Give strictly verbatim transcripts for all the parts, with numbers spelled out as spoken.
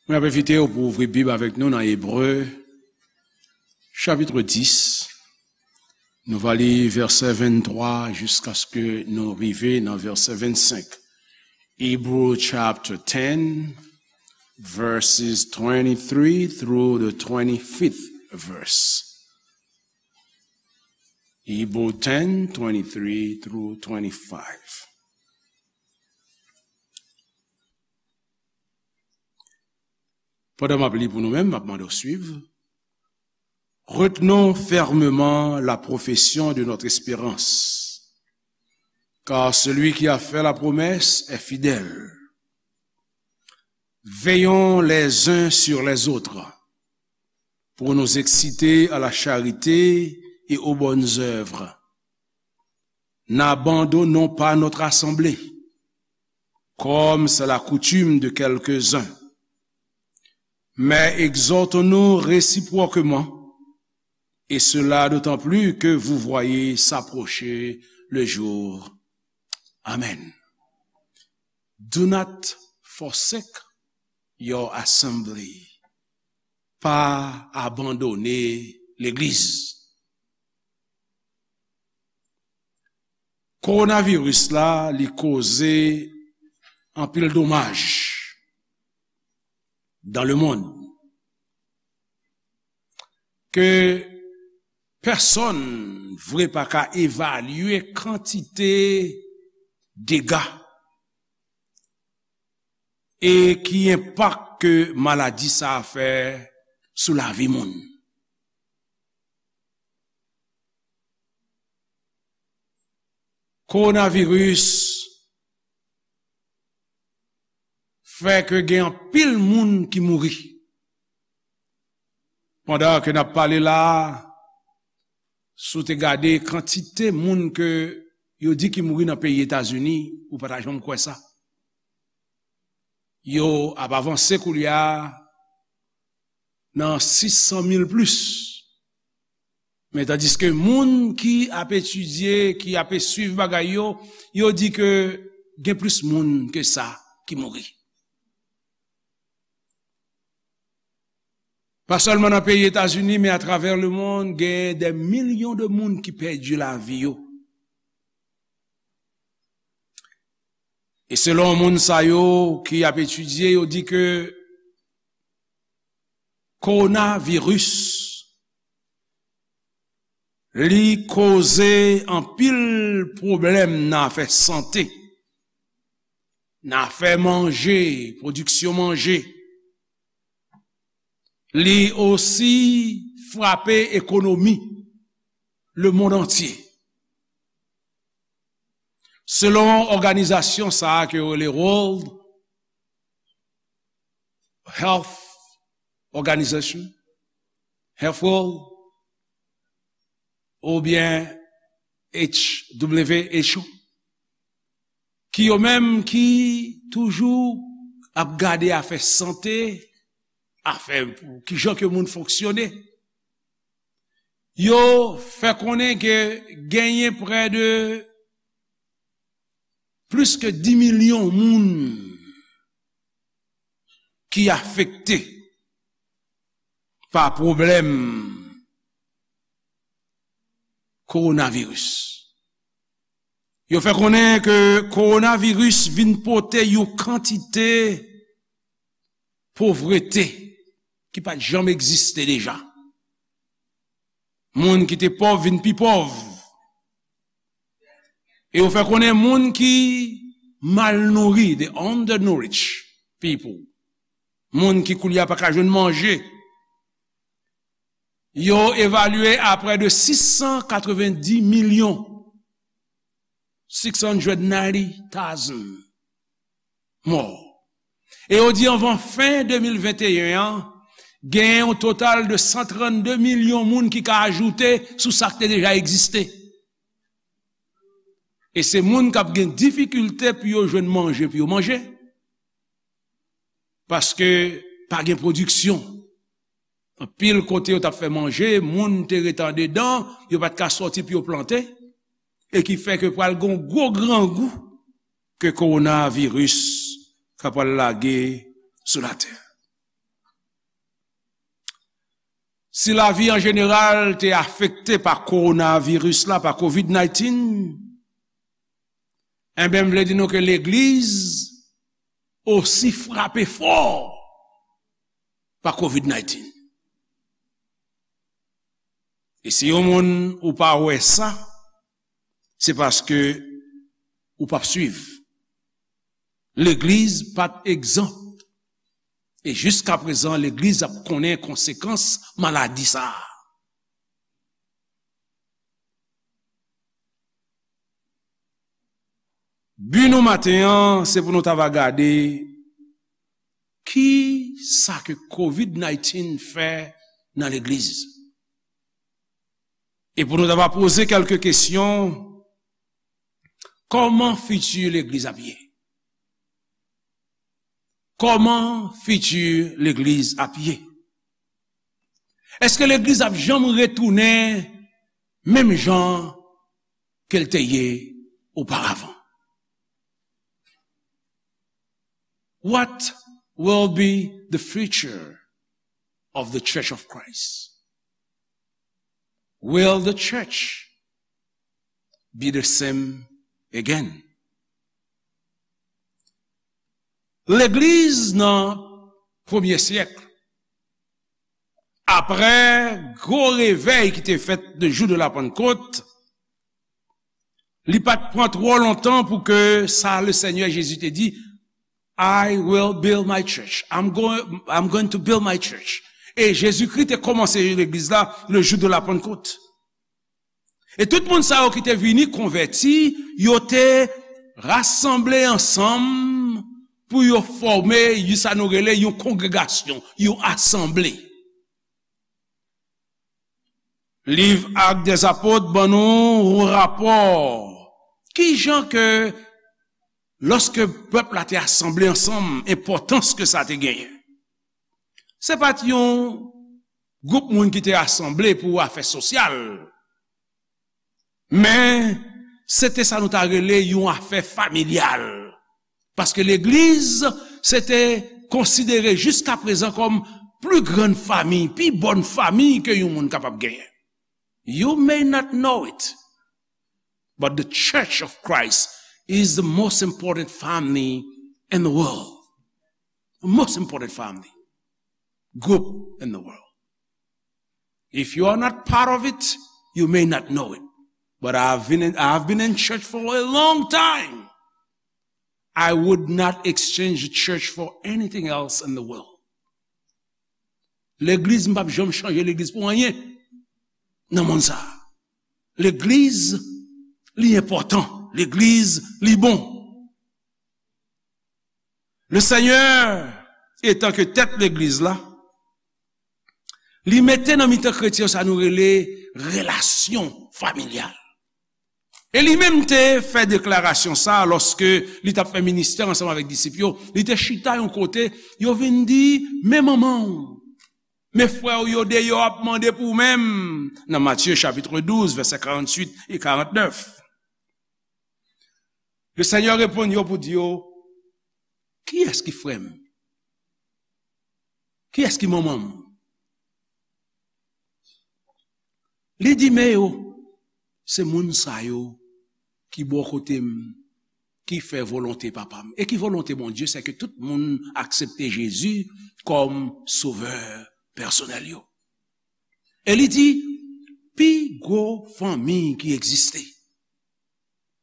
Mwen ap envite w pou ouvri Bib avèk nou nan Ebre, chapit dis. Nou va li vèsè venntwa jiskaske nou rive nan vèsè vennsenk. Hebrew chapter ten, verses twenty-three through the twenty-fifth verse. Hebrew ten, twenty-three through twenty-five. Pandan m ap li pou nou menm, m ap mande w swiv. Retenons fermement la profession de notre espérance, car celui qui a fait la promesse est fidèle. Veillons les uns sur les autres pour nous exciter à la charité et aux bonnes œuvres. N'abandonnons pas notre assemblée, comme c'est la coutume de quelques-uns, mais exhortons-nous réciproquement, et cela d'autant plus que vous voyez s'approcher le jour. Amen. Do not forsake your assembly. Pa abandone legliz. Kowonaviris la, li koze anpil domaj dans le monde. Ke pèsonn vre pa ka evalye kantite dega e ki enpak ke maladi sa a fè sou lavi moun. Kowonaviris fè ke gen anpil moun ki mouri. Pandan ke n ap pale la a, si w te gade kantite moun ke yo di ki mouri nan peyi Etazini, ou pa ta janm kwè sa. Yo ap avanse koulye a nan sis san mil plis. Men tandiske moun ki ap etidye, ki ap swiv bagay yo, yo di ke gen plis moun ke sa ki mouri. Pa sèlman nan peyi Etazini, men atravè lemonn, gen dè milyon de moun ki pèdi lavi yo. E selon moun sa yo ki ap etidye, yo di ke kowonaviris, li koze anpil pwoblèm nan afè sante, nan afè manje, pwodiksyon manje. Li osi frape ekonomi lemonn antye. Selon òganizasyon sa a ke yo rele World Health Organization, Health World, oubyen H W H O, ki yo menm ki toujou ap gade afè sante, afè pou kijan ke moun fonksyone, yo fè konnen ke genyen prè de plis ke dis milyon moun ki afekte pa pwoblèm kowonaviris. Yo fè konnen ke kowonaviris vin pote yon kantite povrete ki pa t janm egziste deja. Moun ki te pòv vin pi pòv. E yo fè konnen moun ki mal nouri, the undernourished people, moun ki koulye a pa ka jwenn manje, yo evalye a prè de sis san katrevenndis milyon, six hundred ninety thousand mò. E yo di anvan fen de mil venteyen an, gen yon total de san trannde milyon moun ki ka ajoute sou sa k te deja egziste. E se moun k ap gen difikilte pou yo jwenn manje, pou yo manje. Paske pa gen pwodiksyon. Anpil kote yo t ap fè manje, moun te ret andedan, yo pa t ka sòti pou yo plante, e ki fè ke pral gen yon gwo grangou ke kowonaviris ka pral lage sou latè. Si lavi an jeneral te afekte pa kowonaviris la, pa kovid nineteen, enben, m vle di nou ke legliz osi frape fò pa kovid nineteen. E si yon moun ou pa wè sa, se paske ou p ap swiv. Legliz pa t egzanp. E jiskaprezan, legliz ap konnen konsekans maladi sa a. Bi nou maten an, se pou nou ta va gade ki sa ke kovid nineteen fè nan legliz. E pou nou ta va poze kèlke kesyon, kòman fiti legliz ap ye? Kòman fiti legliz ap ye? Èske legliz ap janm retounen menm jan ke l te ye oparavan? What will be the future of the Church of Christ? Will the church be the same again? Legliz nan premye syèk, apre gwo revèy ki te fèt le jou de la Pantkot, li pa t pran twò lontan pou ke sa le Senyè Jezi te di, "I will build my church. I'm going, I'm going to build my church." E Jezikri te kòmanse legliz la le jou de la Pantkot. E tout moun sa yo ki te vini konvèti, yo te rasanble ansanm pou yo fòme sa nou rele yon kongregasyon, yon asanble. Liv Actes des Apôtres ban nou yon rapò. Ki jan ke lòske pèp la te asanble ansanm, enpòtans ke sa te genyen? Se pa t yon gwoup moun ki te asanble pou afè sosyal. Men, se te sa nou ta rele yon afè familyal. Paske legliz, se te konsidere jiskaprezan kòm pli grann fanmi, pi bòn fanmi ke yon moun kapab genyen. You may not know it, but the Church of Christ is the most important family in the world. The most important family group in the world. If you are not part of it, you may not know it. But I've been in, I've been in church for a long time. I would not exchange the church for anything else in the world. Legliz, m p ap janm chanje legliz pou anyen nan monn sa a. Legliz, li enpòtan. Legliz, li bon. Le Senyè, etan ke tèt legliz la, li mete nan mitan kretyen sa nou rele relasyon familyal. E li menm te fè deklarasyon sa a lòske li t ap fè ministè ansanm avèk disip yo. Li te chita yon kote, yo vin di, "Men manman w, men frè w yo deyò ap mande pou ou menm." Nan Matye chapit douz, vèsè karanntuit e karantnèf. Le Senyè reponn yo pou di yo, "Kiyès ki frè m? Kiyès ki manman m?" Li di, "Men yo, se moun sa yo ki bò kote m, ki fè volonte Papa m." E ki volonte Bondye, se ke tout moun aksepte Jezi kòm sovè pèsonèl yo. E li di, pi gwo fanmi ki egziste,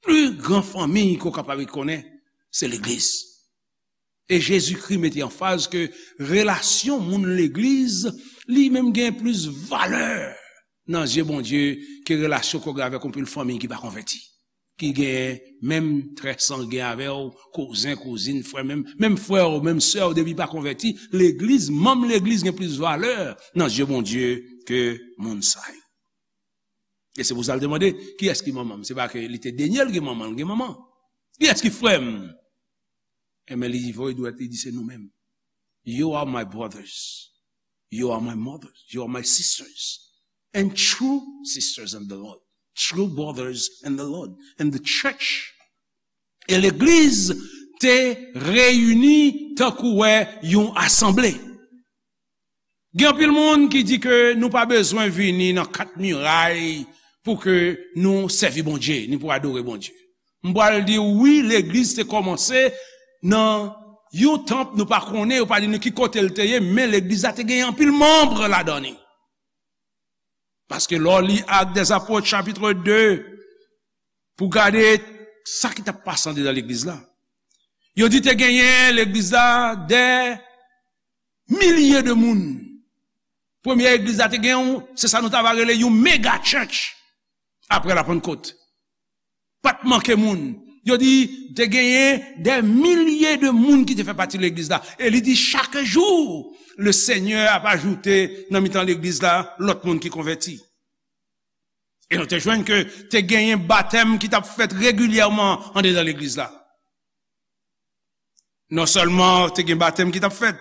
pli gran fanmi ke w kapab konnen, se legliz. E Jezikri mete anfaz ke relasyon moun legliz, li menm gen plis valè nan zye Bondye ke relasyon ke w gen avèk yon pil fanmi ki pa konvèti, ki gen menm trè sangen avè w, kouzen, kouzin, frè, menm, menm frè w, menm sè w, depi pa konvèti, legliz, manm legliz gen plis valè nan zye Bondye ke moun sa yo. E se pou sa l te mande, "Kiyès ki manman m?" Se pa ke li te denye l gen manman, l gen manman. "Kiyès ki frè m?" Enben, li voye dwèt, li di, "Se nou menm. You are my brothers. You are my mothers. You are my sisters. And true sisters in the Lord. True brothers in the Lord." And the church. E legliz te reyini tankou wè yon asanble. Gen anpil moun ki di ke nou pa bezwen vini nan kat miray pou ke nou sèvi Bondye, ni pou adore Bondye. M pral di w, wi, legliz te kòmanse nan yon tanp, nou pa konnen, yo pa di nou ki kote l te ye, men legliz la te gen anpil manm ladan li. Paske lè w li Actes des Apôtres, chapitre de, pou gade sa ki t ap pase andedan legliz la. Yo di te genyen legliz la dè milye de moun. Premye legliz la te gen yon, se sa nou ta va rele yon mega church apre Lapannkot. Pa t manke moun. Yo di te genyen dè milye de moun ki te fè pati legliz la. E li di chak jou, le Senyè ap ajoute nan mitan legliz la lòt moun ki konvèti. E nou te jwenn ke te genyen batèm ki t ap fèt regilyèman andedan legliz la. Non sèlman te gen batèm ki t ap fèt,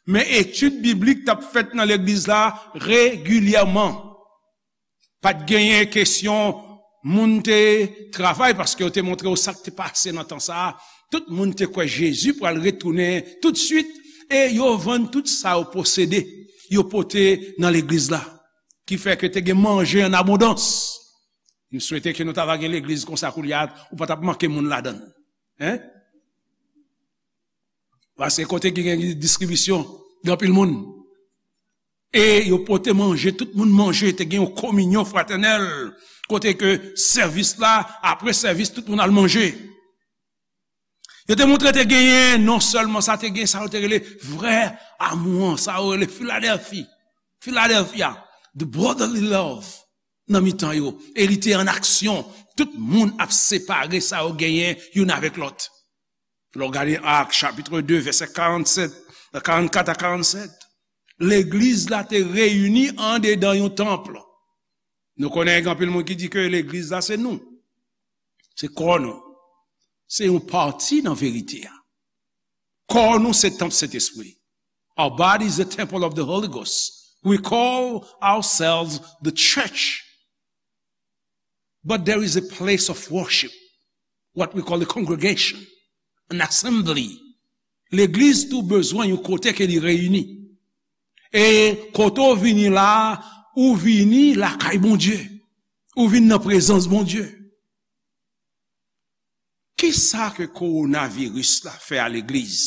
men etid biblik t ap fèt nan legliz la regilyèman. Pa t genyen kesyon moun te travay, paske yo te montre w sa k te pase nan tan sa a. Tout moun te kwè Jezi pral retounen toutswit, e yo vann tout sa yo posede, yo pote nan legliz la. Ki fè ke te gen manje an abondans. M swete ke nou ta va gen legliz konsa koulye a, ou pa t ap manke moun ladan l. Hein? Paske kote ki gen distribisyon, gen anpil moun. E yo pote manje, tout moun manje, te gen yon kominyon fratènèl, kote ke sèvis la, apre sèvis, tout moun al manje. Yo te montre te genyen, non sèlman sa, te gen sa yo te rele vrè amou an, sa yo rele Philadelphia, Philadelphia, the brotherly love nan mitan yo. E li te an aksyon, tout moun ap separe sa yo genyen youn avèk lòt. Lè w gade Ak, chapitre de, vèsè karannsèt, karannkat a karannsèt, legliz la te reyini andedan yon tanp. Nou konnen gen anpil moun ki di ke legliz la se nou. Se kò nou. Se yon pati nan verite a. Kò nou se tanp Sentespri. Our body is the temple of the Holy Ghost. We call ourselves the church. But there is a place of worship, what we call a congregation, an assembly. Legliz tou bezwen yon kote ke li reyini. E kote w vini la, ou vini lakay Bondye. Ou vin nan prezans Bondye. Kisa ke kowonaviris la fè a legliz?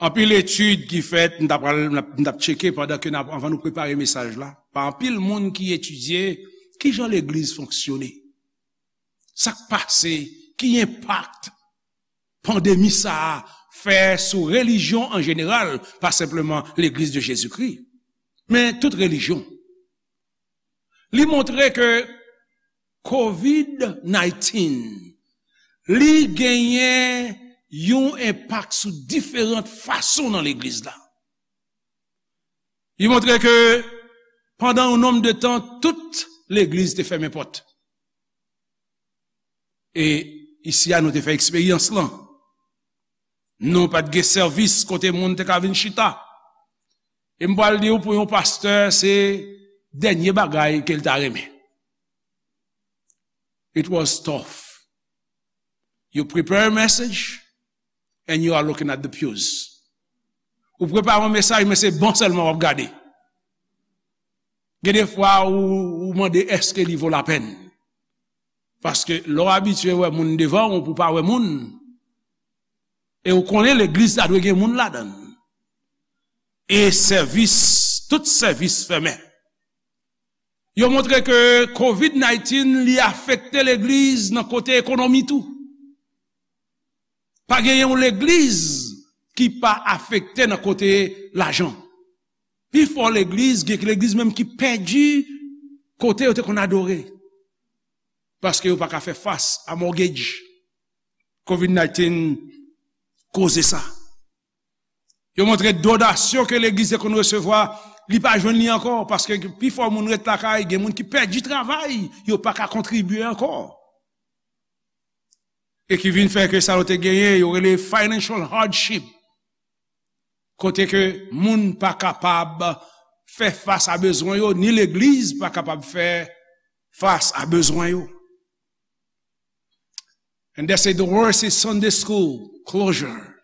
Anpil etid ki fèt, m t ap pral, m t ap, m t ap tcheke pandan ke n ap, anvan nou prepare mesaj la, pa anpil moun ki etidye kijan legliz fonksyone. Sa k pase, ki enpak pandemi sa a fè sou relijyon an jeneral, pa senpleman Legliz de Jezikri, men tout relijyon. Li montre ke kovid nineteen, li genyen yon enpak sou diferan fason nan legliz la. Li montre ke pandan yon nonm de tan, tout legliz te fèmen pòt. E isi a, nou te fè eksperyans lan. Nou pa t gen sèvis kote moun te ka vin chita. E m pral di w, pou yon pastè, se dènye bagay ke l ta renmen. It was tough. You prepare a message and you are looking at the pews. Ou prepare yon mesaj, men se ban sèlman w ap gade. Gen de fwa ou, ou mande èske li vo lapèn. Paske lè w abitye wè moun devan w pou w pa wè moun, e ou konnen legliz la dwe gen moun ladan l. E sèvis, tout sèvis fèmen. Yo montre ke kovid nineteen li afekte legliz nan kote ekonomi tou. Pa gen yon legliz ki pa afekte nan kote lajan. Pifò legliz, gen legliz menm ki pèdi kote yo te konn adore. Paske yo pa ka fè fas a mortgage. Kovid nineteen koze sa. Yo montre donasyon ke legliz te konn resevwa, li pa jwenn li ankò, paske pifò moun ret lakay, gen moun ki pèdi travay, yo pa ka kontribye ankò. E ki vin fè ke sa yo te genyen, yo rele financial hardship. Kote ke moun pa kapab fè fas a bezwen yo, ni legliz pa kapab fè fas a bezwen yo. And they say the worst is Sunday school closure.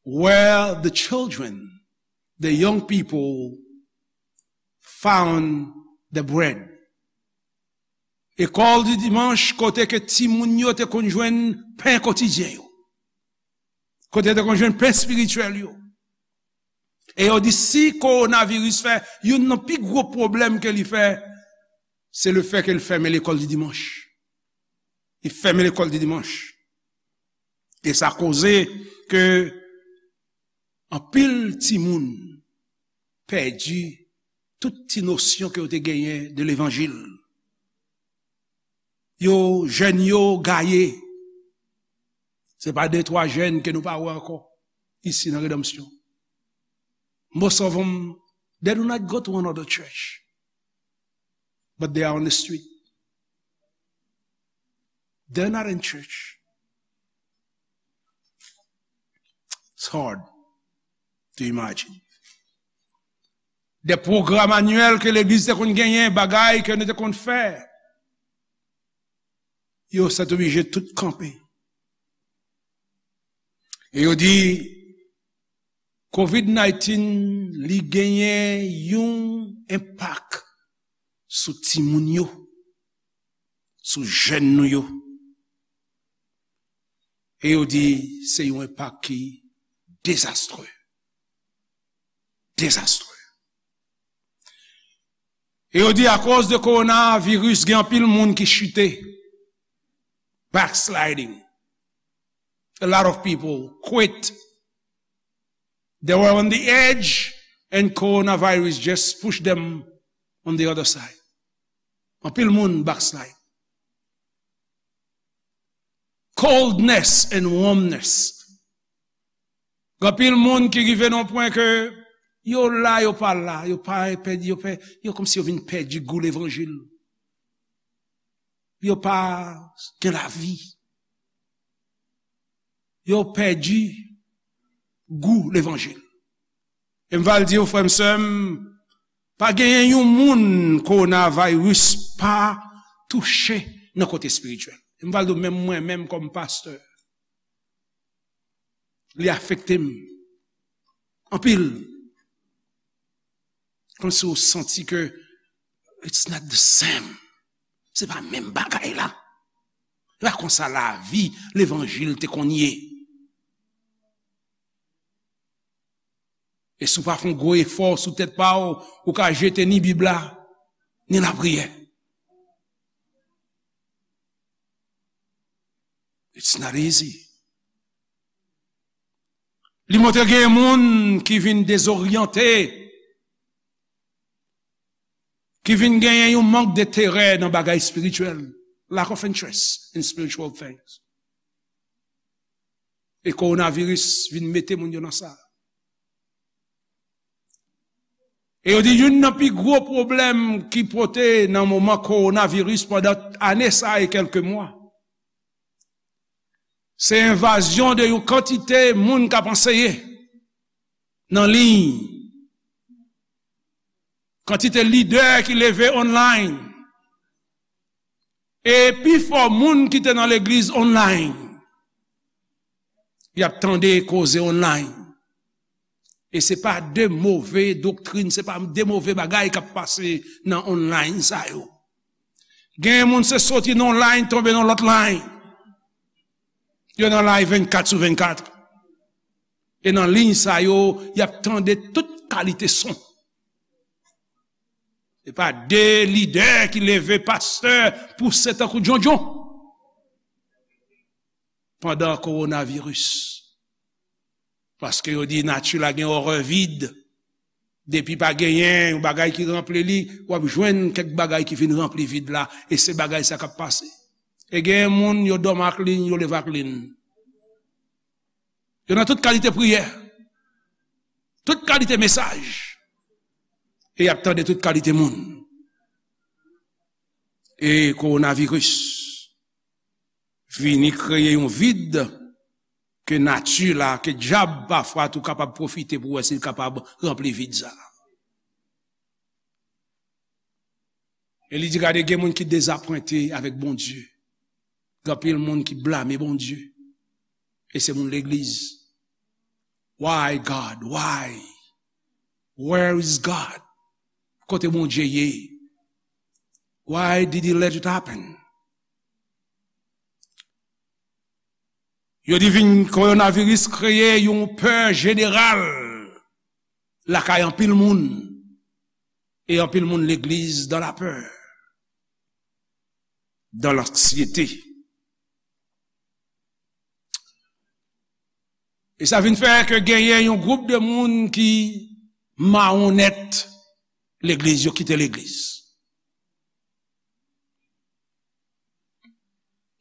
where the children, the young people found the bread. Ekòl di dimanch, kote ke timoun yo te konn jwenn pen kotidyen yo. Kote yo te konn jwenn pen espirityèl yo. E yo di si kowonaviris fè, youn nan pi gwo pwoblèm ke li fè, se le fè ke l fèmen lekòl di dimanch. Li fèmen lekòl di dimanch. E sa koze ke anpil timoun pèdi tout ti nosyon ke yo te genyen de levanjil. Yo, jèn yo gaye. Se pa de twa jèn ke nou pa wè ankò isi nan Redanmsyon. Most of them, they do not go to another church, but they are on the street. They're not in church. It's hard to imagine. De pwogram anyèl ke legliz te konn genyen, bagay ke nou te konn fè, yo sètoblije tout kanpe. E yo di, covid nineteen, li genyen yon enpak sou timoun yo, sou jèn nou yo. E yo di se yon enpak ki dezastre. Dezastre. E yo di akoz de kowonaviris, gen anpil moun ki chite. Backsliding. A lot of people quit. They were on the edge and coronavirus just pushed them on the other side. Anpil moun backslide. Coldness and warmness. Gen anpil moun ki rive nan pwen ke yo la, yo pa la, yo pa pèdi, yo pè, yo kòmsi yo vin pèdi gou levanjil. Yo pa gen lavi. Yo pèdi gou levanjil. E m va l di w, frè m, sè m, pa genyen yon moun kowonaviris pa touche nan kote espirityèl. E m va l di w, menm mwen menm kòm pastè, li afekte m anpil. Kòmsi w santi ke it's not the same. Se pa menm bagay la. Se pa konsa lavi levanjil te konn ye. E si w pa fè yon gwo efò sou tèt pa w, ou ka jete ni Bib la, ni lapriyè. It's not easy. Li montre gen moun ki vin dezoryante, ki vin genyen yon mank de enterè nan bagay espirityèl, lack of interest in spiritual things. E kowonaviris vin mete moun yo nan sa. E yo di youn nan pi gwo pwoblèm ki pote nan moman kowonaviris pandan ane sa e kèlke mwa, se envazyon de yon kantite moun k ap anseye nan liy, kantite lidè ki leve online, e pifò moun ki te nan legliz online, y ap tande koze online. E se pa de move doktrin, se pa de move bagay k ap pase nan online sa yo. Gen moun se soti nan yon line tonbe nan lòt line. Yo nan line vennkat sou vennkat. E nan liy sa yo, y ap tande tout kalite son. Se pa de lidè ki leve pastè pouse tankou djondjon pandan kowonaviris. Paske yo di nati la gen orè vid. Depi pa genyen yon bagay ki ranpli li, w ap jwenn kèk bagay ki vin ranpli vid la. E se bagay sa k ap pase. E genyen moun, yo dòmi ak li, yo leve ak li. Yo nan tout kalite priyè, tout kalite mesaj. E y ap tande tout kalite moun. E kowonaviris vini kreye yon vid ke nati la, ke dyab pafwa tou kapab pwofite pou wè si l kapab ranpli vid sa. E li di, gade, gen moun ki dezapwente avèk Bondye. Gen anpil moun ki blame Bondye. E se moun legliz. Why God? Why? Where is God? Kote Bondye ye? Why did he let it happen? Yo di vin kowonaviris kreye yon pè jeneral lakay anpil moun, e anpil moun legliz dans la peur, dans l'anxiété. E sa vin fè ke genyen yon gwoup de moun ki mawonnèt legliz, yo kite legliz.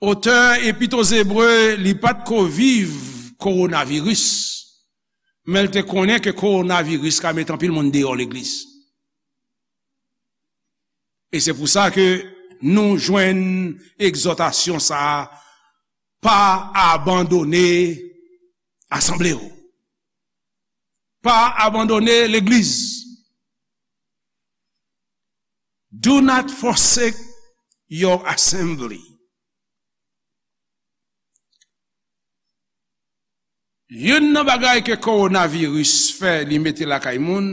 Otè Epit Ebre, li pa t ko viv kowonaviris, men l te konnen ke kowonaviris ka met anpil moun deyò legliz. E se pou sa ke nou jwenn egzòtasyon sa a, pa abandone asanble w. Pa abandone legliz. Do not forsake your assembly. Youn nan bagay ke kowonaviris fè, li mete lakay moun,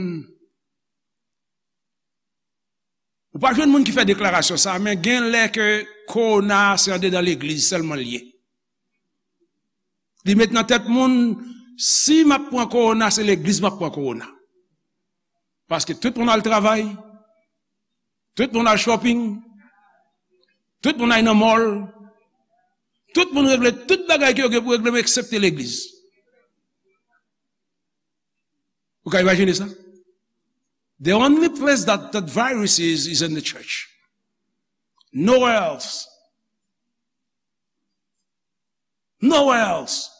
ou pa jwenn moun ki fè deklarasyon sa, men gen lè ke kowona se andedan legliz sèlman l ye. Li met nan tèt moun, si m ap pran kowona, se legliz m ap pran kowona. Paske tout moun al travay, tout moun al shopping, tout moun al nan mall, tout moun regle tout bagay ke yo gen pou regle, men eksepte legliz. Ou ka imajine sa? The only place that that virus is, is in the church. Nowhere else. Nowhere else.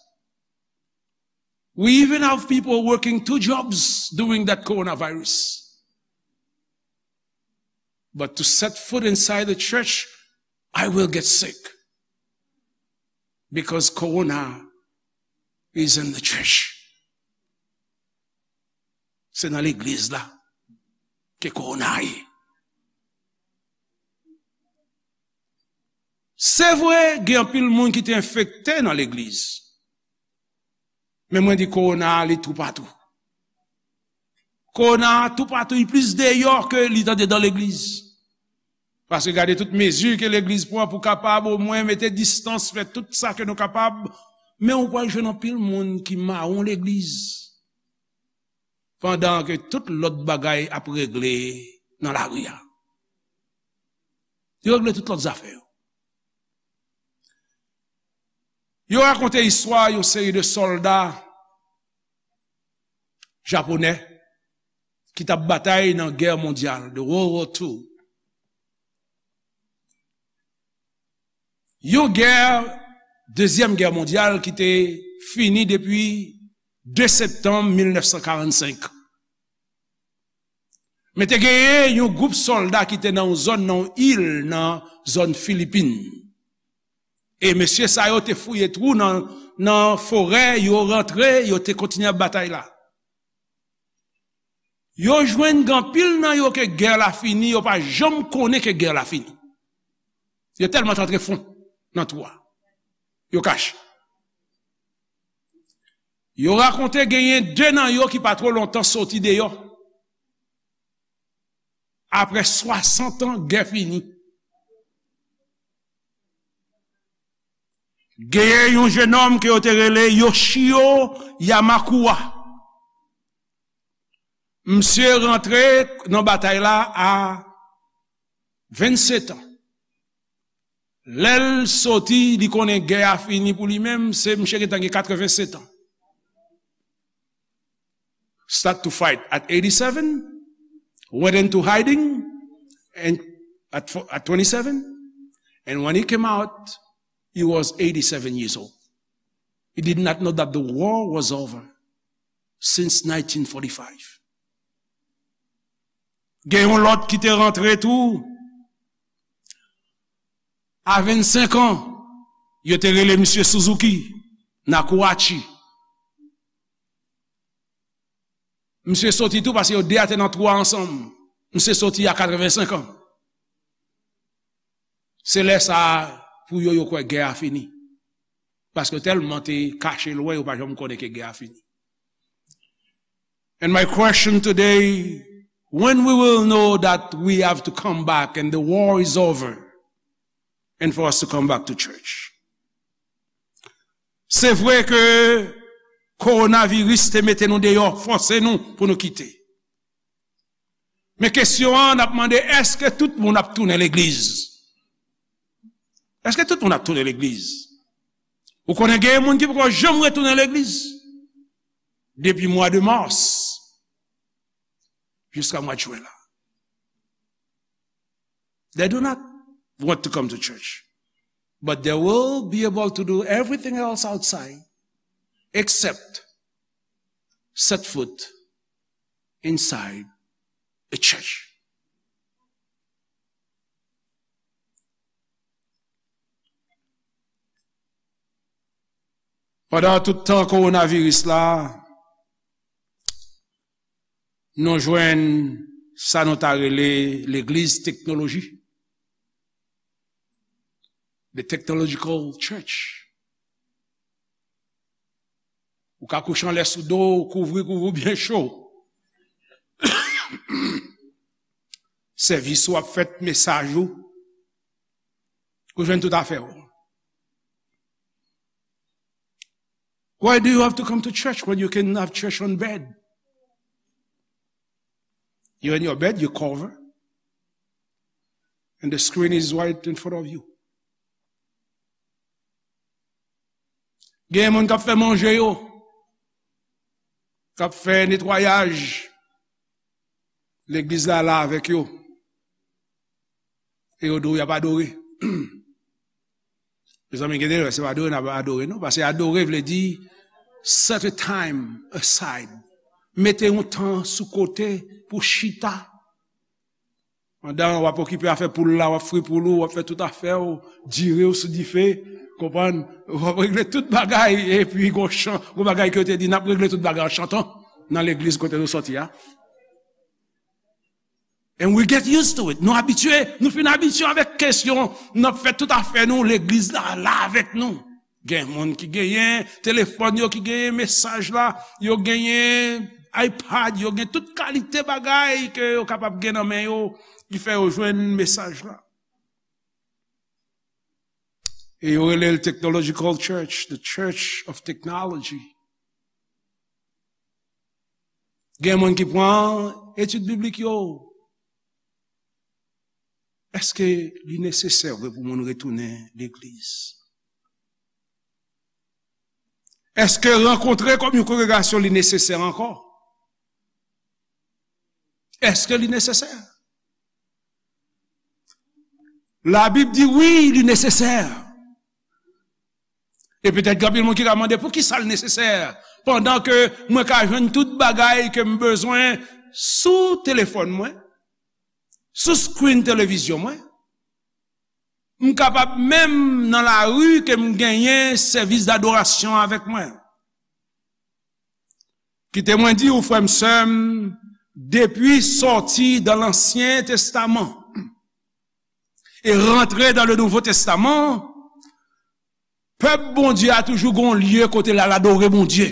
We even have people working two jobs during that coronavirus. But to set foot inside the church, I will get sick. Because corona is in the church. Se nan legliz la ke kowona ye. Se vre, gen anpil moun ki te enfekte nan legliz. Men mwen di kowona a, li toupatou. Kowona a toupatou, li plis deyò ke li t andedan legliz. Paske gade tout mezi ke legliz pran pou kapab omwen mete distans, fè tout sa ke nou kapab. Men ou pral jwenn anpil moun ki mawon legliz. Pandan ke tout lòt bagay ap regle nan lari a. Yo regle tout lòt zafè yo. Yo rakonte istwa yon seri de sòlda japonè ki t ap batay nan gè mondyal, the World War two. Yon gè, dezyèm gè mondyal ki te fini depi de septanm mil nèf san karannsenk. Men te genyen yon gwoup sòlda ki te nan yon zòn, nan yon il, nan zòn Filipin. E mesye sa yo te fouye twou nan, nan forè, yo rantre, yo te kontinye ap batay la. Yo jwenn gen anpil nan yo ke gè la fini, yo pa janm konnen ke gè la fini. Yo tèlman t antre fon nan twou a. Yo kache. Yo rakonte genyen de nan yo ki pa twò lontan soti deyò. Apre swasant an, gè fini. Genyen yon jenòm ke yo te rele Yoshio Yamakuwa. Misye rantre nan batay la a vennsetan. Lè l soti, li konnen gè a fini pou li menm, se misye gentan gen katrevensetan. Start to fight at eighty-seven, went into hiding and at, fo- at twenty-seven, and when he came out, he was eighty-seven years old. He did not know that the war was over since nineteen forty-five. Gen yon lòt ki te rantre tou a vennsenk an, yo te rele misye Suzuki Nakuachi. Misye soti tou paske yo de a te nan twou a ansanm. Misye soti a katrevensenk an. Se lè sa a, pou yo, yo kwè gè a fini. Paske tèlman te kache lwen, yo pa janm konnen ke gè a fini. And my question today, when we will know that we have to come back and the war is over, and for us to come back to church. Se vre ke kowonaviris te mete nou deyò, fòse nou pou nou kite. Men kesyon an, n ap mande, èske tout moun ap tounen legliz? Èske tout moun ap tounen legliz? Ou konnen gen moun ki poko janm retounen legliz depi mwa de mas jiska mwa de jen la. They do not want to come to church, but they will be able to do everything else outside except set foot inside a church. Pandan tout tan kowonaviris la, nou jwenn sa nou ta rele legliz teknoloji. The technological church. Ou ka kouche anlè sou do w, kouvri, kouvri w byen cho. Sèvis ou ap fèt, mesaj ou. Ou jwenn tout afè w. Why do you have to come to church when you can have church on bed? You're in your bed, you cover, and the screen is right in front of you. Gen moun k ap fè manje yo, k ap fè netwayaj. Legliz la la avèk yo. E yo di w y ap adore. Mezanmi, gen de lè, se pa adore n ap adore, non. Paske adore vle di set a time aside. Mete yon tan sou kote pou chita. Pandan w ap okipe afè poul la, w ap fri poul ou, w ap fè tout afè w, diri w sou dife, konprann? W ap regle tout bagay, epi gon chan, gon bagay ke yo te di, n ap regle tout bagay an chantan nan legliz kote nou sòti a. And we get used to it. Nou abitye, nou fin abitye avèk kesyon, n ap fè tout afè nou, legliz la, la avèk nou. Gen moun ki genyen telefòn yo, ki genyen mesaj la, yo genyen iPad, yo gen tout kalite bagay ke yo kapab gen nan men yo, ki fè yo jwenn mesaj la. E yo rele l technological church, the church of technology. Gen moun ki pran etid biblik yo. Èske li nesesè vre pou moun retounen legliz? Èske rankontre kòm yon kongregasyon li nesesè ankò? Èske li nesesè? Labib di wi, li nesesè. E petèt gen anpil moun ki ka mande, poukisa l nesesè? Pandan ke mwen ka jwenn tout bagay ke m bezwen sou telefòn mwen, sou screen televizyon mwen, m kapab menm nan lari ke m genyen sèvis dadorasyon avèk mwen. Kite mwen di w, frè m, sè m, depi sòti dan Lansyen Testaman e rantre dan le Nouvo Testaman, pèp Bondye a toujou gon lye kote l al adore Bondye.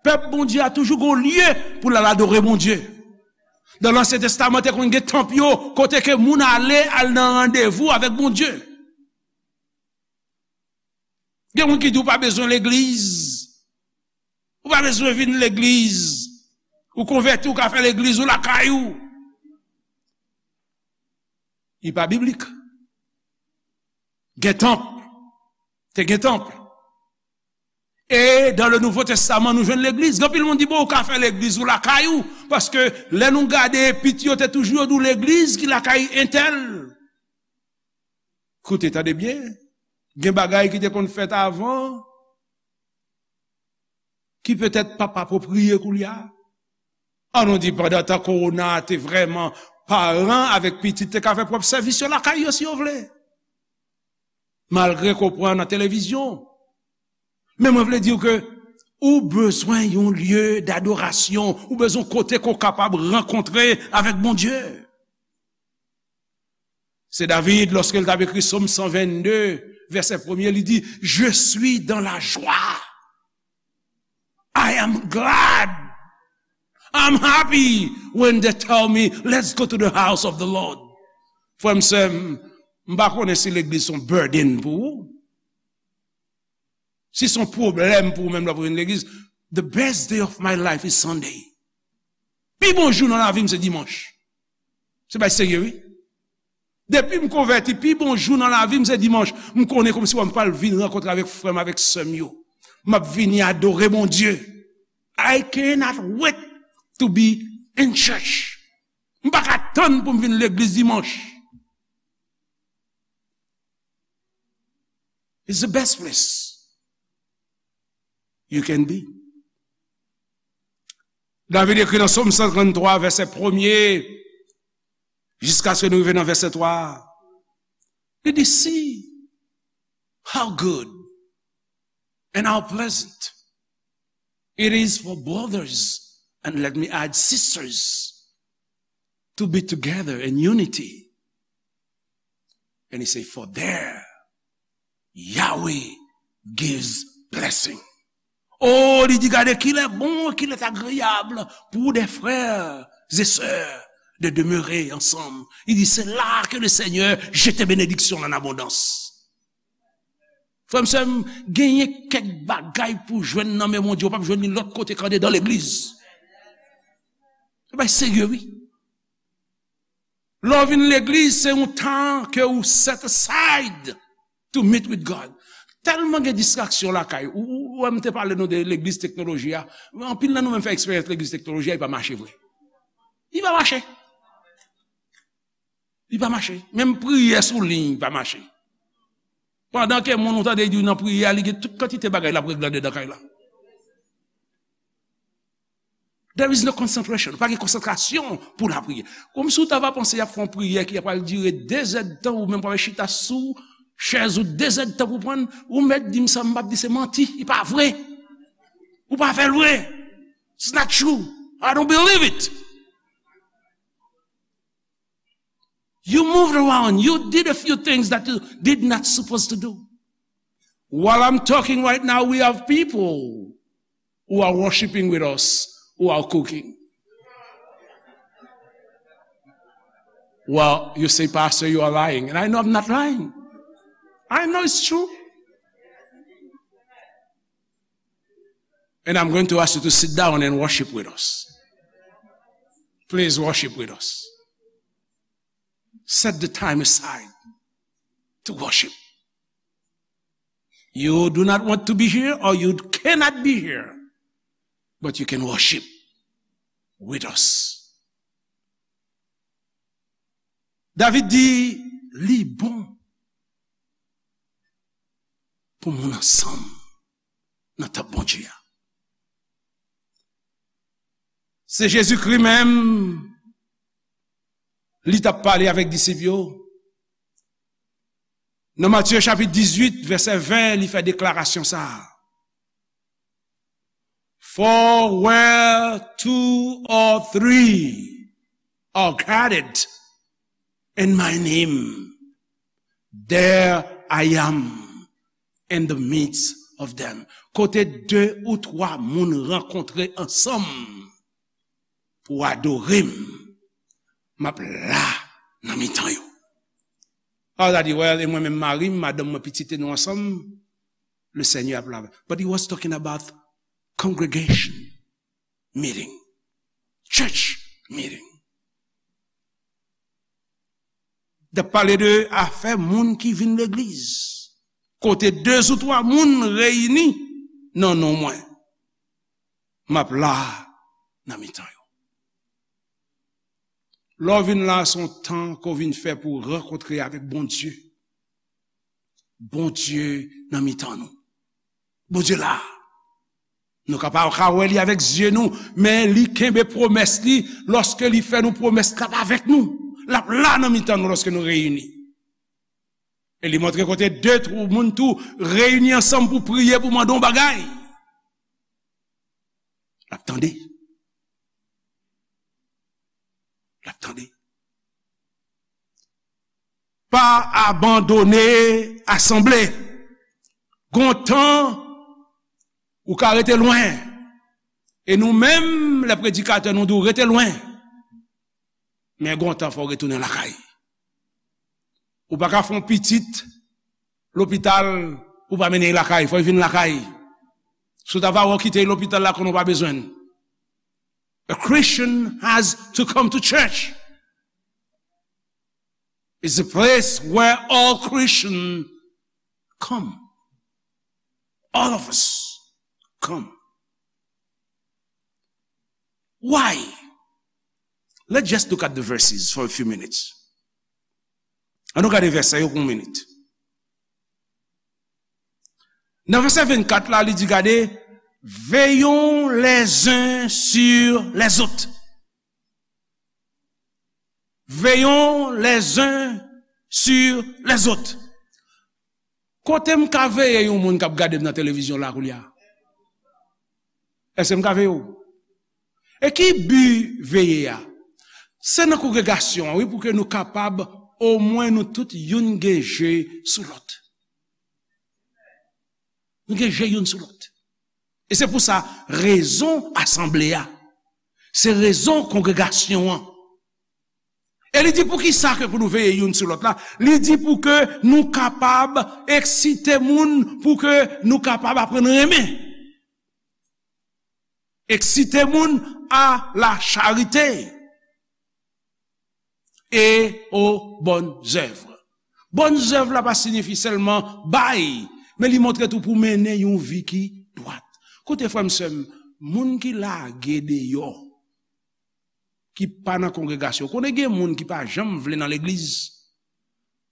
Pèp Bondye a toujou gon lye pou l al adore Bondye. Dan Lansyen Testaman, te konn gen tanp yo, kote ke moun ale, al nan randevou avèk Bondye. Gen moun ki di w pa bezwen legliz. Ou pa bezwen vin legliz. Ou konvèti, ou ka fè legliz ou lakay ou. Li pa biblik. Gen tanp. Te gen tanp. E dan le Nouvo Testaman, nou jwenn legliz. Gen anpil moun di, bon, ou ka fè legliz ou lakay ou. Paske lè nou gade, piti yo te toujou yo di w legliz ki lakay entèl. Koute, tande byen. Gen bagay ki te konn fèt avan, ki petèt p ap apwopriye koulye a. An nou di, pandan tan kowona a te vrèman, paran avèk pitit te ka fè pwòp sèvis yo lakay yo si yo vle. Malgre ke w pran nan televizyon. Men mwen vle di w ke ou bezwen yon lye dadorasyon, ou bezwen kote ke w kapab rankontre avèk Bondye. Se David, lòske l t ap ekri Sòm san vennde, vèsè premye, li di, je suis dans la joie. I am glad. I'm happy when they tell me, "Let's go to the house of the Lord." Frè m, sè m, m pa konnen si legliz se yon burden pou ou. Si se yon pwoblèm pou ou menm lè w vin legliz, the best day of my life is Sunday. Pi bon jou nan lavi m se dimanch. Se bagay serye, wi. Depi m konvèti, pi bon jou nan lavi m se dimanch. M konnen kòmsi m pral vin rankontre avèk frè m, avèk sè m yo. M ap vini adore Bondye. I cannot wait to be in church. M pa ka tann pou m vin legliz dimanch. It's the best place you can be. David ekri nan Sòm san tranntwa, vèsè premye, jiskaske nou rive nan vèsè twa. Li di, "See how good and how pleasant it is for brothers, and let me add, sisters, to be together in unity." And he say, "For there Yahweh gives blessing." Oh, li di, "Gade kilè bon, kilè agreyab pou des frères et sœurs de demeurer ensemble." Il dit, "C'est là que le Seigneur jette bénédiction en abondance." Frè m, sè m, genyen kèk bagay pou jwenn nan men Bondye, ou p ap jwenn li lòt kote k andedan legliz. Se bagay serye, wi. Lè w vin legliz, se yon tan ke ou set aside to meet with God. Tèlman gen distraksyon lakay. Ou, ou, ou wè m te pale nou de legliz teknoloji a. Anpil nan nou menm fè eksperyans legliz teknoloji a, li pa mache vre. Li pa mache. Li pa mache. Menm priyè sou liy pa mache. Pandan ke moun ou tande di nan priyè a, li gen tout kantite bagay l ap regle andedan kay la. There is no concentration. Pa gen konsantrasyon pou lapriyè. Kòmsi w ta va panse y ap fè yon priyè ki pral dire de zèdtan, ou menm pral chita sou chèz ou de zèdtan pou prann, ou mèt di m sa, m p ap di se manti, li pa vre. Ou pa fè l vre. It's not true. I don't believe it. You moved around. You did a few things that you did not supposed to do. While I'm talking right now, we have people who are worshiping with us, who are cooking. Well, you say, "Pastor, you are lying." And I know I'm not lying. I know it's true. And I'm going to ask you to sit down and worship with us. Please worship with us. Set the time aside to worship. You do not want to be here or you cannot be here, but you can worship with us. David di, li bon pou moun ansanm nan tanp Bondye a. Se Jezikri menm, li t ap pale avèk disip yo. Nan Matye chapit dizuit, vèsè ven, li fè deklarasyon sa a. For where two or three are gathered in my name, there I am in the midst of them. Kote de ou twa moun rankontre ansanm pou adore m, m ap la nan mitan yo. A, w ta di, well, e mwen menm mari m, madanm mwen, pitit e nou ansanm, le Seigneur ap la. But he was talking about congregation meeting, church meeting. T ap pale de afè moun ki vin legliz. Kote de ou twa moun reyini nan non mwen, m ap la nan mitan yo. Lè w vin la, se yon tan ke w vin fè pou w rankontre avèk Bondye. Bondye nan mitan nou. Bondye la. Nou ka pa ka wè li avèk zye nou, men li kenbe pwomès li lòske li fè nou pwomès l ap avèk nou. L ap la nan mitan nou lòske nou reyini. E li montre kote de, twa moun tou reyini ansanm pou priye, pou mande yon bagay. L ap tande. L ap tande. Pa abandone asanble. Gon tan ou ka rete lwen. E nou menm, lè predikatè nou di w rete lwen. Men gon tan fò w retounen lakay. Ou pa ka fè yon pitit lopital, ou pa mennen l lakay, fò l vin lakay. Si w ta va wè w kite l lopital la, konnen w pa bezwen l. A Christian has to come to church. It's a place where all Christians come. All of us come. Why? Let's just look at the verses for a few minutes. An nou gade vèsè yo pou yon minit. Nan vèsè vennkat la, li di, gade, veillons les uns sur les autres. Veillons les uns sur les autres. Kote m ka veye yon moun k ap gade m nan televizyon la koulye a? Èske m ka veye w? E ki bi veye a? Se nan kongregasyon an, wi, pou ke nou kapab, omwen nou tout, youn gen je sou lòt. Nou gen je youn sou lòt. E se pou sa, rezon asanble a, se rezon kongregasyon an. E li di, poukisa ke pou nou veye youn sou lòt la? Li di pou ke nou kapab eksite moun, pou ke nou kapab aprann renmen. Eksite moun à la charité et aux bonnes œuvres. Bonnes œuvres la pa siyifi sèlman bay, men li montre tou pou mennen yon vi ki dwat. Koute, frè m, sè m, moun ki lage deyò, ki pa nan kongregasyon. Konnen gen moun ki pa janm vle nan legliz,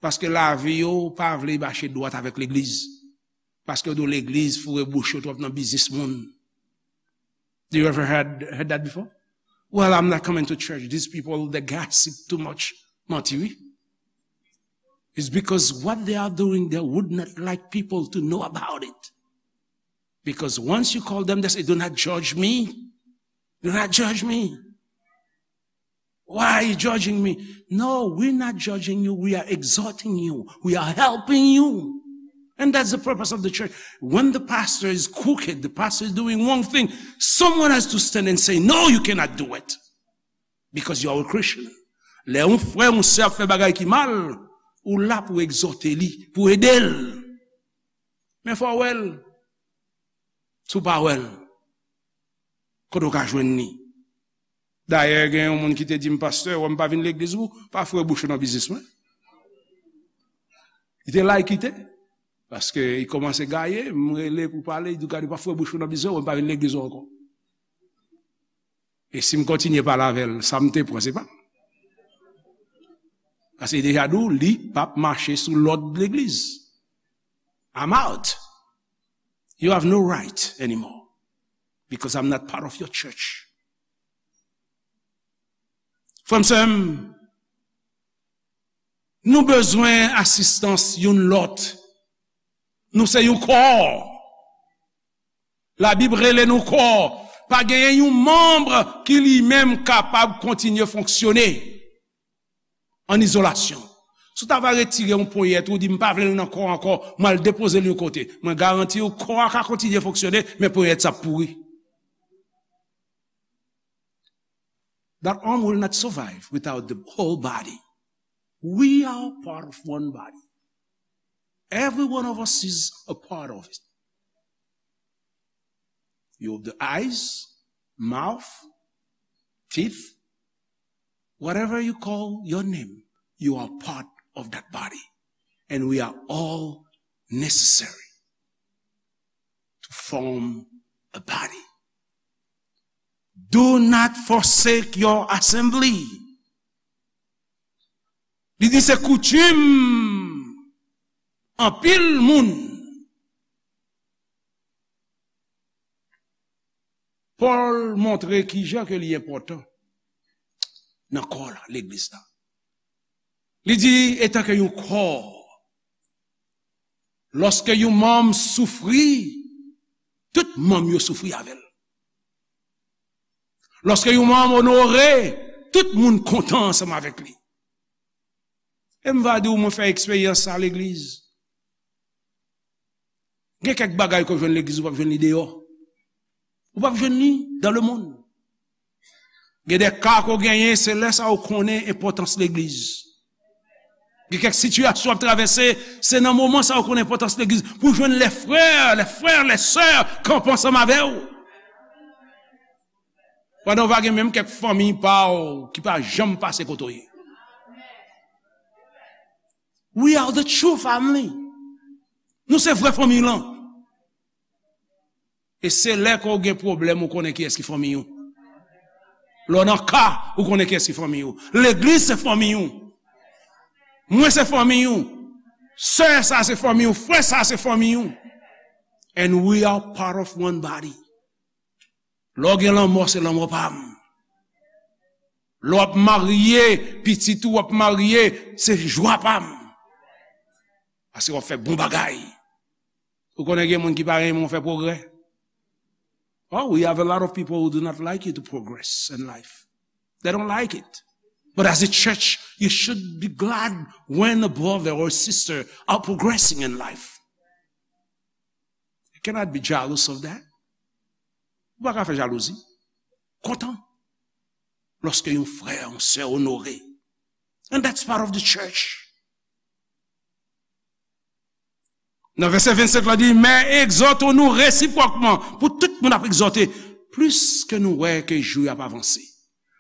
paske lavi yo pa vle mache dwat avèk legliz. Paske yo di w legliz foure bouch yo twòp nan biznis moun. Do you ever heard, heard that before? Well, I'm not coming to church. These people, they gossip too much. Manti, wi. It's because what they are doing, they would not like people to know about it. Because once you call them, they say, "Do not judge me. Do not judge me. Why are you judging me?" No, we're not judging you. We are exhorting you. We are helping you. And that's the purpose of the church. When the pastor is crooked, the pastor is doing wrong thing, someone has to stand and say, "No, you cannot do it." Because you are a Christian. Lè yon frè, yon sè ap fè bagay ki mal, ou la pou egzòte li, pou ede l. Men fò w wè l. Si w pa wè l, kote w ka jwenn li? Dayè, gen yon moun ki te di m, "Pastè, wè m pa vin legliz ou, pa foure bouch ou nan biznis mwen." Li te la, li kite. Paske li kòmanse gaye, m rele pou pale, li di, "Gade, pa foure bouch ou nan biznis ou, wè m pa vin legliz ou ankò." E si m kontinye pale avè l, sa m te pran, se pa m. Paske li deja di w, li p ap mache sou lòd legliz. I'm out. You have no right anymore. Because I'm not part of your church. Frè m, sè m, nou bezwen asistans youn lòt. Nou se yon kò. Labib rele nou kò. Pa genyen yon manm ki li menm kapab kontinye fonksyone an izolasyon. Si w ta va retire yon ponyèt, ou di, "M pa vle l nan kò ankò, m al depoze l yon kote." Mwen garanti w, kò a ka kontinye fonksyone, men ponyèt sa ap pouri. That arm will not survive without the whole body. We are part of one body. Every one of us is a part of it. You have the eyes, mouth, teeth, whatever you call your name, you are part of that body. And we are all necessary to form a body. Do not forsake your assembly. Li di se koutim anpil moun. Pòl montre kijan ke li enpòtan nan kò la, legliz la. Li di, etanke yon kò, lòske yon manm soufri, tout manm yo soufri avè l. Lòske yon manm onore, tout moun kontan ansanm avèk li. E m va di w, mwen fè eksperyans sa legliz. Gen kèk bagay ke w jwenn legliz, ou p ap jwenn li deyò. Ou p ap jwenn li dans le monde. Gen de ka ke w genyen, se lè sa w konnen enpòtans legliz. Gen kèk sitiyasyon w ap travèse, se nan moman sa w konnen enpòtans legliz. Pou w jwenn les frères, les frères, les sœurs kanpe ansanm avè w. Pandan w va gen menm kèk fanmi pa w ki pa janm pase kote w ye. We are the true family. Nou se vrè fanmi lan. E se lè ke w gen pwoblèm, ou konnen kiyès ki fanmi w. Lè w nan ka, ou konnen kiyès ki fanmi w. Legliz se fanmi w. Mwen se fanmi w. Sè sa se fanmi w. Frè sa se fanmi w. And we are part of one body. Lè w gen lanmò, se lanmò pa m. Lè w ap marye, pitit ou w ap marye, se jwa pa m. Paske w ap fè bon bagay. Ou konnen gen moun ki pa renmen w fè pwogrè. Oh, we have a lot of people who do not like you to progress in life. They don't like it. But as a church, you should be glad when a brother or sister are progressing in life. You cannot be jealous of that. Ou pa ka fè jalouzi. Kontan. Lòske yon frè, yon sè onore. And that's part of the church. Nan vèsè vennsenk la di, men egzòte nou resipwòkman, pou tout moun ap egzòte, plis ke nou wè ke jou ap avanse.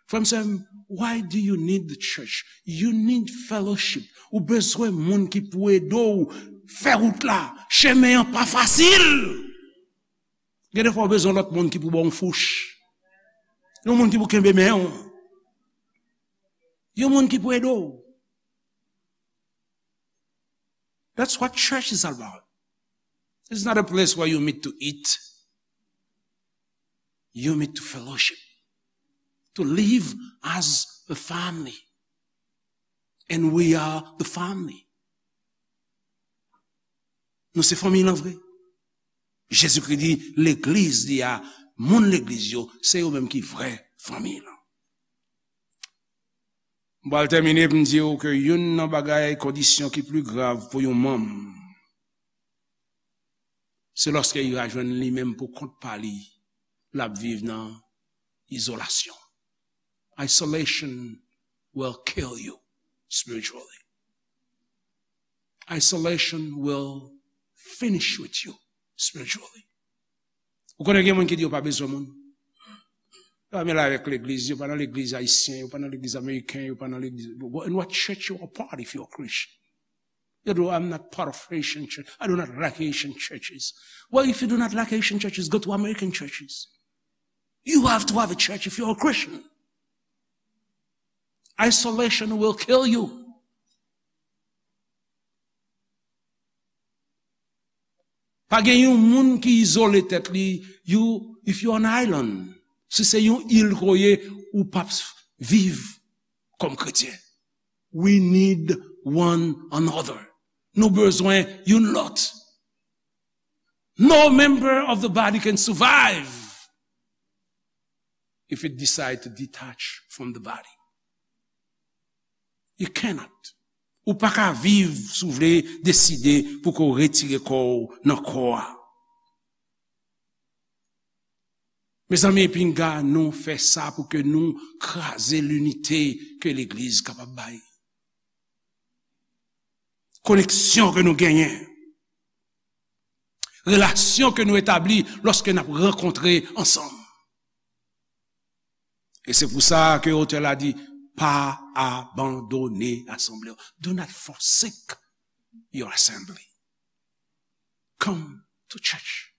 Frè m, sè m, why do you need the church? You need fellowship. Ou bezwen moun ki pou ede w fè wout la. Chemen an pa fasil. Gen de fwa ou bezwen lòt moun ki pou ba w yon fouch. Yon moun ki pou kenbe men w. Yon moun ki pou ede w. That's what church is about. It's not a place where you meet to eat. You meet to fellowship, to live as a family. And we are the family. Nou se fanmi lan vre. Jezikri di legliz li a, moun legliz yo, se yo menm ki vrè fanmi lan. M pral tèmine pou m di w ke youn nan bagay, kondisyon ki pli grav pou yon manm, se lòske li va jwenn li menm pou kont pa li, l ap viv nan izolasyon. Isolation will kill you spiritually. Isolation will finish with you spiritually. Ou konnen gen moun ki di yo pa bezwen moun. Yo pa mele avèk legliz, yo pa nan legliz ayisyen, yo pa nan legliz ameriken, yo pa nan legliz. In what church you are part if you're a Christian? You do, I'm not part of Haitian church. I do not like Haitian churches. Well, if you do not like Haitian churches, go to American churches. You have to have a church if you're a Christian. Isolation will kill you. Pa gen yon moun ki izole tèt li. You, if you're an island, si se yon il ke w ye, ou p ap viv kòm kretyen. We need one another. Nou bezwen youn lòt. No member of the body can survive if it decide to detach from the body. You cannot. Ou pa ka viv si w vle deside pou ke w retire kò w nan kò a. Mezanmi, pinga nou fè sa pou ke nou kraze linite ke legliz kapab bay. Koneksyon ke nou genyen, relasyon ke nou etabli lòske n ap rankontre ansanm. E se pou sa ke otè la di, pa abandone asanble w. Do not forsake your assembly. Come to church.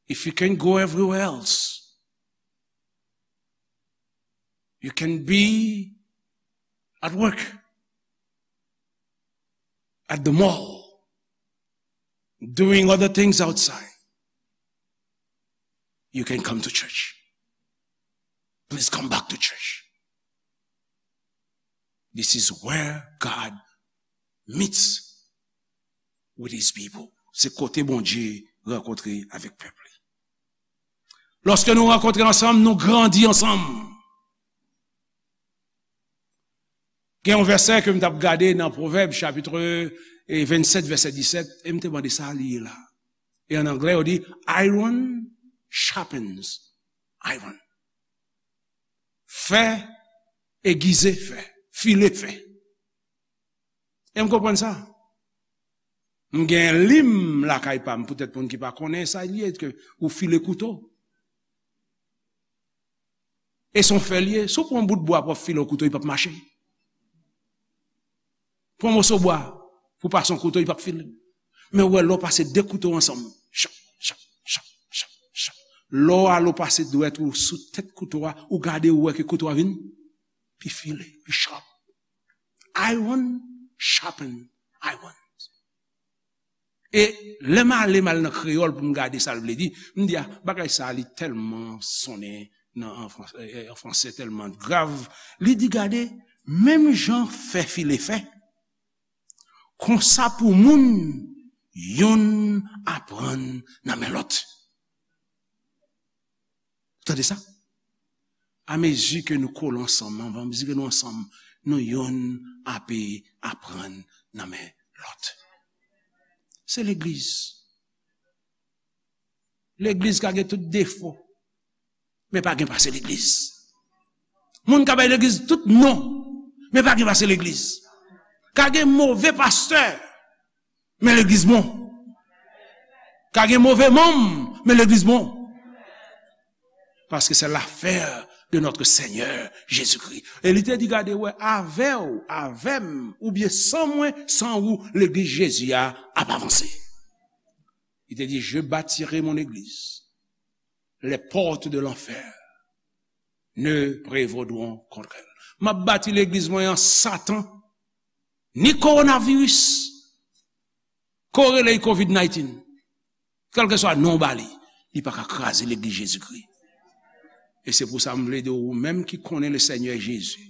If you can go everywhere else, you can be at work, at the mall, doing other things outside. You can come to church. Please come back to church. This is where God meets with his people. Se kote Bondye rankontre avèk pèp li. Lòske nou rankontre ansanm, nou grandi ansanm. Gen yon vèsè ke m t ap gade nan Pwovèb chapit, e, vennsèt, vèsè disèt, e m te mande sa li ye la. E an anglè, yo di, iron sharpens iron. fè, egize fè, file fè. E m konprann sa. M gen lim lakay pa m, poutèt moun ki pa konnen sa l ye, ke ou file kouto. E se yon fè l ye, si w pran yon bout bwa pou w ap file yon kouto, li p ap mache. Pran yon moso bwa pou w pase yon kouto, li p ap file. Men w wè, lè w pase de kouto ansanm, chap, chap, chap, chap, chap. Lè w ale w pase dwèt ou sou tèt kouto a, ou gade, ou wè ke kouto a vin pi file, pi sharp. Iron sharpen iron. E lè m ale, m al nan kreyòl pou m gade sa l vle di, m di, a, bagay sa a, li tèlman sonnen nan, an fran-, eh, an franse, tèlman grav. Li di, gade, menm jan fè file fè, konsa pou moun, yonn aprann nan men lòt. Tande sa? Amezi ke nou kole ansanm, amezi ke nou ansanm, nou yonn ape aprann nan men lòt. Se legliz. Legliz ka gen tout defo, men pa gen pase legliz. Moun ka bay legliz tout non, men pa gen pase legliz. Ka gen move pastè, men legliz bon. Ka gen move manm, men legliz bon. Paske se lafè de notre Seigneur Jésus-Christ. E li te di, gade, wè, avè w, avè m, oubyen san mwen, san ou, legliz Jezi a ap avanse. Li te di, je bâtirai mon église. Les portes de l'enfer ne prévaudront contre elle. M ap bati legliz mwen an, Satan, ni kowonaviris, korele covid nineteen, kèlkeswa non ba li, li pa ka kraze legliz Jezikri. E se pou sa m vle di w, ou menm ki konnen le Senyè Jezi,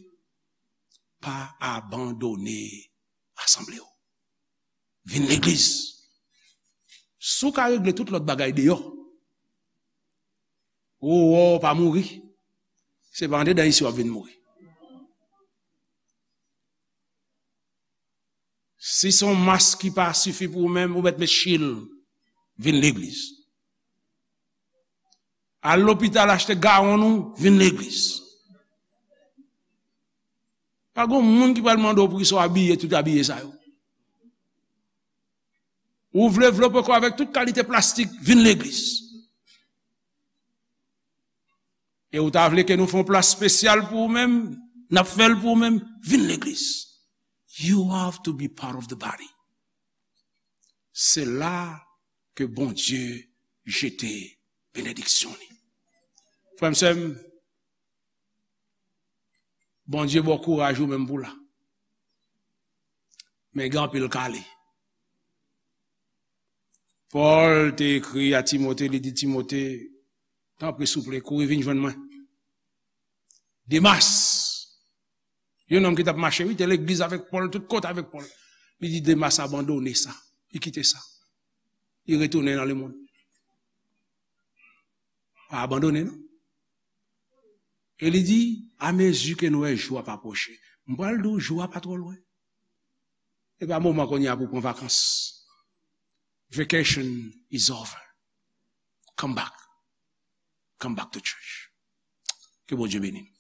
pa abandone asanble w. Vin legliz. Si w ka regle tout lòt bagay deyò, ou wè w pa mouri, se pa andedan isi w ap vin mouri. Si se yon mas ki pa sifi pou ou menm, ou mèt met chil, vin legliz. Al lopital achte gawon ou, vin legliz. Pa gon moun ki pral mande w pou ki sa w abiye tout abiye sa yo. Ou vle vlope kò avèk tout kalite plastik, vin legliz. E ou ta vle ke nou fè yon plas espesyal pou ou menm, n ap fè l pou ou menm, vin legliz. You have to be part of the body. Se la ke Bondye jete benediksyon li. Frè m, sè m, Bondye ba w kouraj ou menm pou la. Men gen anpil kale. Pòl te ekri a Timote, li di Timote, tanpri souple, kouri vin jwenn mwen. Demas, yon nonm ki t ap mache, wi, te legliz avèk Pòl, tout kote avèk Pòl. Li di Demas abandone sa, li kite sa. Li retounen nan lemonn. Pa abandone, non. E li di, amezi ke nou wè jou ap apwoche, m pral di w, jou a pa twò lwen. E pa moman kounye a pou pran vakans. Vacation is over. Come back. Come back to church. Ke Bondye beni nou.